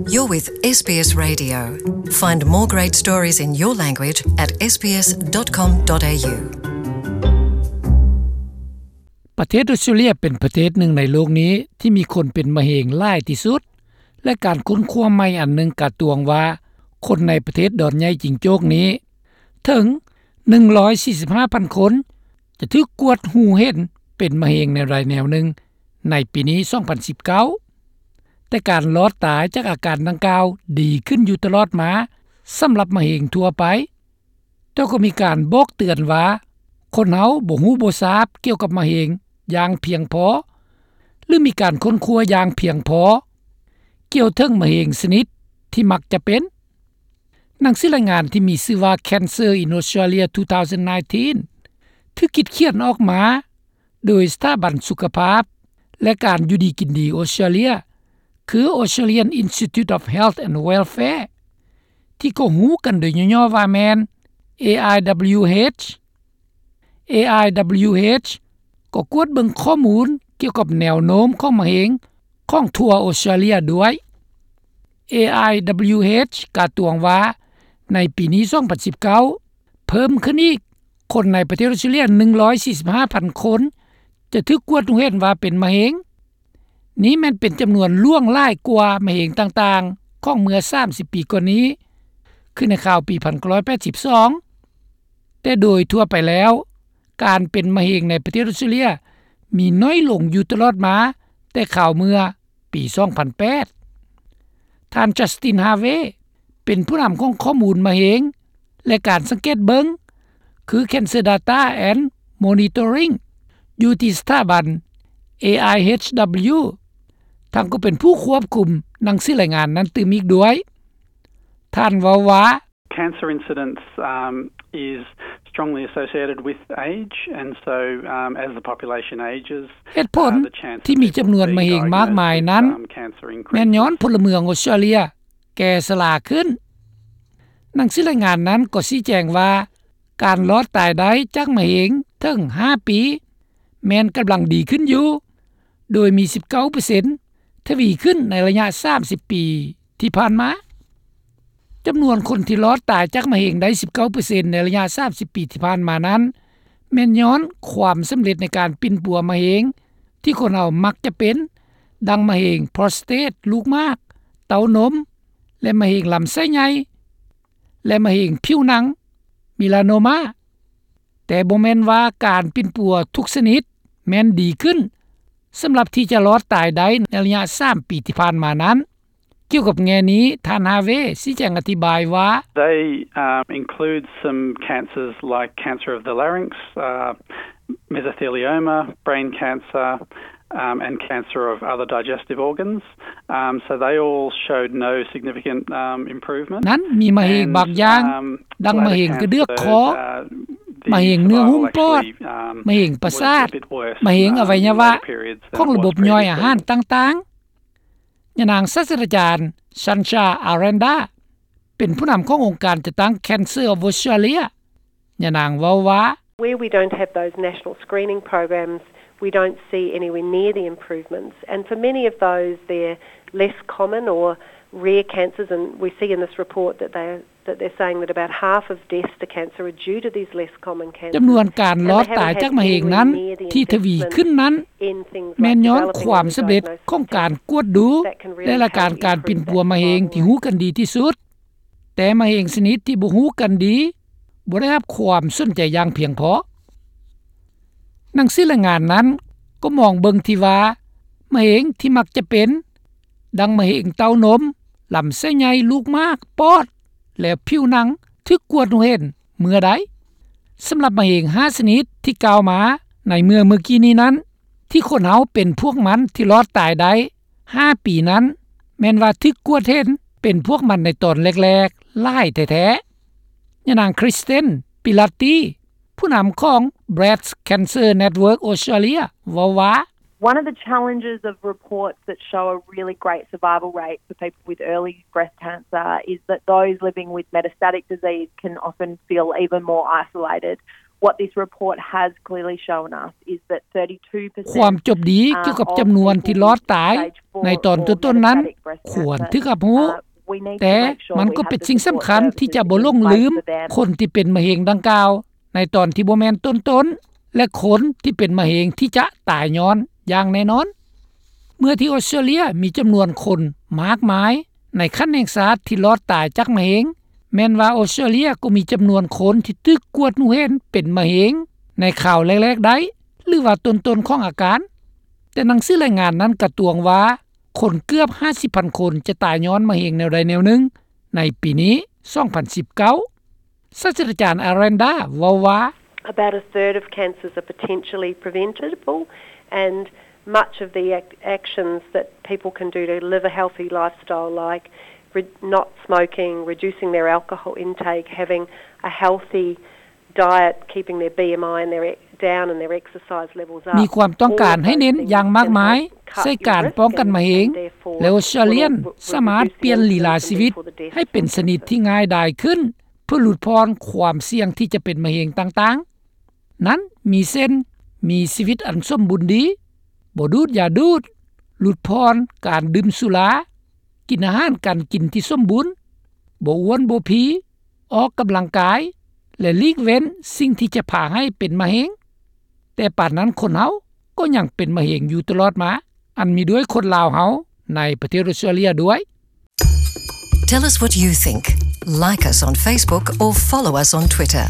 You're with SBS Radio. Find more great stories in your language at sbs.com.au. ປະເທດອົດສະຕຣາເລຍເປັນປະເທດໜຶ່ງໃນໂລກນີ້ທີ່ມີຄົນເປັນມະເຮັງຫຼາຍທີ່ສຸດ ແລະ ການຄົ້ນຄວ້າໃໝ່ອັນໜຶ່ງກະຕວງວ່າ ຄົນໃນປະເທດດອນໃຫຍ່ຈິງໂຈ້ກນີ້ ເຖິງໜຶ່ງຮ້ອຍສີ່ສິບຫ້າພັນຄົນ ຈະຖືກກວດຮູ້ເຫັນເປັນມະເຮັງແນວໃດແນວໜຶ່ງໃນປີນີ້ ສອງພັນສິບເກົ້າ ແຕ່ການລອດຕາຍຈາກອາການດັ່ງກ່າວດີຂຶ້ນຢູ່ຕະຫຼອດມາສຳລັບມະເຮັງທົ່ວໄປ, ແຕ່ກໍມີການບອກເຕືອນວ່າ ຄົນເຮົາບໍ່ຮູ້ບໍ່ຊາບກ່ຽວກັບມະເຮັງຢ່າງພຽງພໍ ຫຼື ມີການຄົ້ນຄວ້າຢ່າງພຽງພໍກ່ຽວເຖິງມະເຮັງຊະນິດທີ່ມັກຈະເປັນ. ໜັງສືລາຍງານທີ່ມີຊື່ວ່າ Cancer in Australia two thousand nineteen ຖືກຄິດຂຽນອອກມາໂດຍສະຖາບັນສຸຂະພາບ ແລະ ການຢູ່ດີກິນດີອົດສະຕຣາເລຍ ຄື Australian Institute of Health and Welfare ທີ່ກໍຮູ້ກັນໂດຍຫຍໍ້ໆວ່າແມ່ນ AIWH. AIWH ກໍກວດເບິ່ງຂໍ້ມູນກ່ຽວກັບແນວໂນ້ມຂອງມະເຮັງຂອງທົ່ວອົດສະຕຣາເລຍດ້ວຍ. AIWH ກະຕວງວ່າໃນປີນີ້ ສອງພັນສິບເກົ້າ ເພີ່ມຂຶ້ນອີກ ຄົນໃນປະເທດອົດສະຕຣາເລຍໜຶ່ງຮ້ອຍສີ່ສິບຫ້າພັນຄົນ ຈະຖືກກວດຮູ້ເຫັນວ່າເປັນມະເຮັງ. ນີ້ແມ່ນເປັນຈຳນວນຫຼວງຫຼາຍກວ່າມະເຮັງຕ່າງໆຂອງເມື່ອສາມສິບປີກ່ອນນີ້ ຄືໃນຄາວປີໜຶ່ງພັນເກົ້າຮ້ອຍແປດສິບສອງ. ແຕ່ໂດຍທົ່ວໄປແລ້ວ ການເປັນມະເຮັງໃນປະເທດອົດສະຕຣາເລຍມີໜ້ອຍລົງຢູ່ຕະຫຼອດມາແຕ່ຄາວເມື່ອປີສອງພັນແປດ. ທ່ານ Justin Harvey ເປັນຜູ້ນຳຂອງຂໍ້ມູນມະເຮັງ ແລະ ການສັງເກດເບິ່ງ ຄື Cancer Data and Monitoring ຢູ່ທີ່ສະຖາບັນ AIHW ທັງກໍເປັນຜູ້ຄວບຄຸມໜັງສືລາຍງານນັ້ນຕື່ມອີກດ້ວຍ. ທ່ານເວົ້າວ່າ Cancer incidence, um, is strongly associated with age, and so, um, as the population ages, ເຫດຜົນທີ່ມີຈຳນວນມະເຮັງມາກມາຍນັ້ນ ແມ່ນຍ້ອນພົນລະເມືອງອົດສະຕຣາເລຍແກ່ຊະລາຂຶ້ນ. ໜັງສືລາຍງານນັ້ນກໍຊີ້ແຈງວ່າ ການລອດຕາຍໄດ້ຈາກມະເຮັງເຖິງຫ້າປີ ແມ່ນກຳລັງດີຂຶ້ນຢູ່ ໂດຍມີສິບເກົ້າເປີເຊັນ ທະວີຂຶ້ນໃນໄລຍະສາມສິບປີທີ່ຜ່ານມາ. ຈຳນວນຄົນທີ່ລອດຕາຍຈາກມະເຮັງໄດ້ສິບເກົ້າເປີເຊັນໃນໄລຍະສາມສິບປີທີ່ຜ່ານມານັ້ນ ແມ່ນຍ້ອນຄວາມສຳເລັດໃນການປິ່ນປົວມະເຮັງທີ່ຄົນເຮົາມັກຈະເປັນ ດັ່ງມະເຮັງໂປຣສະເຕດ, ລູກໝາກ, ເຕົ້ານົມ ແລະ ມະເຮັງລຳໄສ້ໃຫຍ່ ແລະ ມະເຮັງຜິວໜັງ, melanoma. ແຕ່ບໍ່ແມ່ນວ່າການປິ່ນປົວທຸກຊະນິດແມ່ນດີຂຶ້ນ ສຳລັບທີ່ຈະລອດຕາຍໄດ້ໃນໄລຍະສາມປີທີ່ຜ່ານມານັ້ນ. ກ່ຽວກັບແງ່ນີ້ ທ່ານ Harvey ຊີ້ແຈງອະທິບາຍວ່າ They, um, include some cancers like cancer of the larynx, uh, mesothelioma, brain cancer, um, and cancer of other digestive organs. Um, so they all showed no significant, um, improvement. ນັ້ນມີມະເຮັງບາງຢ່າງ And, um, ດັ່ງມະເຮັງກະເດືອກຄໍ, ມະເຮັງເນື້ອຫຸ້ມປອດ, ມະເຮັງປະສາດ, ມະເຮັງອະໄວຍະວະຂອງລະບົບຍ່ອຍອາຫານຕ່າງໆ. ຍານາງສາດສະດາຈານ Sancha Aranda ເປັນຜູ້ນຳຂອງອົງການຈັດຕັ້ງ Cancer of Australia. ຍານາງເວົ້າວ່າ Where we don't have those national screening programs, we don't see anywhere near the improvements. And for many of those, they're less common or rare cancers, and we see in this report that they, that they're saying that about half of deaths to cancer are due to these less common cancers. ຈຳນວນການລອດຕາຍຈາກມະເຮັງນັ້ນທີ່ທະວີຂຶ້ນນັ້ນ ແມ່ນຍ້ອນຄວາມສຳເລັດຂອງການກວດດູ ແລະ ລາຍການການປິ່ນປົວມະເຮັງທີ່ຮູ້ກັນດີທີ່ສຸດ. ແຕ່ມະເຮັງຊະນິດທີ່ບໍ່ຮູ້ກັນດີ ບໍ່ໄດ້ຮັບຄວາມສົນໃຈຢ່າງພຽງພໍ. ໜັງສືລາຍງານນັ້ນກໍມອງເບິ່ງທີ່ວ່າ ມະເຮັງທີ່ມັກຈະເປັນ ດັ່ງມະເຮັງເຕົ້ານົມ, ລຳໄສ້ໃຫຍ່, ລູກໝາກ, ປອດ ແລະ ຜິວໜັງ ຖືກກວດຮູ້ເຫັນເມື່ອໃດ. ສຳລັບມະເຮັງຫ້າຊະນິດທີ່ກ່າວມາໃນເມື່ອ ເມື່ອກີ້ນີ້ນັ້ນ ທີ່ຄົນເຮົາເປັນພວກມັນທີ່ລອດຕາຍໄດ້ຫ້າປີນັ້ນ ແມ່ນວ່າຖືກກວດເຫັນເປັນພວກມັນໃນຕອນແລກໆຫຼາຍແທ້ໆ. ຍານາງ Kristen Pilati ຜູ້ນຳຂອງ Breast Cancer Network Australia ເວົ້າວ່າ One of the challenges of reports that show a really great survival rate for people with early breast cancer is that those living with metastatic disease can often feel even more isolated What this report has clearly shown us is that thirty-two percent ຄວາມຈົບດີກ່ຽວກັບຈຳນວນທີ່ລອດຕາຍໃນຕອນຕົ້ນໆນັ້ນ ຄວນຖືກຮັບຮູ້, ແຕ່ມັນກໍເປັນສິ່ງສຳຄັນທີ່ຈະບໍ່ຫຼົງລືມຄົນທີ່ເປັນມະເຮັງດັ່ງກ່າວໃນຕອນທີ່ບໍ່ແມ່ນຕົ້ນໆ ແລະ ຄົນທີ່ເປັນມະເຮັງທີ່ຈະຕາຍຍ້ອນຢ່າງແນ່ນອນ. ເມື່ອທີ່ອອສເຕຣເລຍມີຈຳນວນຄົນມາກມາຍໃນຂັ້ນແຫ່ງຊາດທີ່ລອດຕາຍຈາກມະເຮັງ, ແມ່ນວ່າອອສເຕຣເລຍກໍມີຈຳນວນຄົນທີ່ຖືກກວດຮູ້ເຫັນເປັນມະເຮັງໃນຄາວແລກໆໄດ້ ຫຼືວ່າຕົ້ນໆຂອງອາການ. ແຕ່ໜັງສືລາຍງານນັ້ນກະຕວງວ່າ ຄົນເກືອບຫ້າສິບພັນຄົນຈະຕາຍຍ້ອນມະເຮັງແນວໃດແນວໜຶ່ງໃນປີນີ້ ສອງພັນສິບເກົ້າ. ສາດສະດາຈານ Aranda ເວົ້າວ່າ About a third of cancers are potentially preventable, and much of the ac- actions that people can do to live a healthy lifestyle, like re- not smoking, reducing their alcohol intake, having a healthy diet, keeping their B M I and their e- down and their exercise levels up. ມີຄວາມຕ້ອງການໃຫ້ເນັ້ນຢ່າງມາກມາຍໃສ່ການປ້ອງກັນມະເຮັງ ແລະ ອອສເຕຣເລຍສາມາດປ່ຽນລີລາຊີວິດໃຫ້ເປັນຊະນິດທີ່ງ່າຍດາຍຂຶ້ນ ເພື່ອຫຼຸດຜ່ອນຄວາມສ່ຽງທີ່ຈະເປັນມະເຮັງຕ່າງໆ. ນັ້ນມີເຊັ່ນ ມີຊີວິດອັນສົມບູນດີ, ບໍ່ດູດຢາດູດ, ຫຼຸດຜ່ອນການດື່ມສຸລາ, ກິນອາຫານການກິນທີ່ສົມບູນ, ບໍ່ອ້ວນບໍ່ພີ, ອອກກຳລັງກາຍ ແລະ ຫຼີກເວັ້ນສິ່ງທີ່ຈະພາໃຫ້ເປັນມະເຮັງ. ແຕ່ປານນັ້ນຄົນເຮົາກໍຍັງເປັນມະເຮັງຢູ່ຕະຫຼອດມາ, ອັນມີດ້ວຍຄົນລາວເຮົາໃນປະເທດອອສເຕຣເລຍດ້ວຍ. Tell us what you think. Like us on Facebook or follow us on Twitter.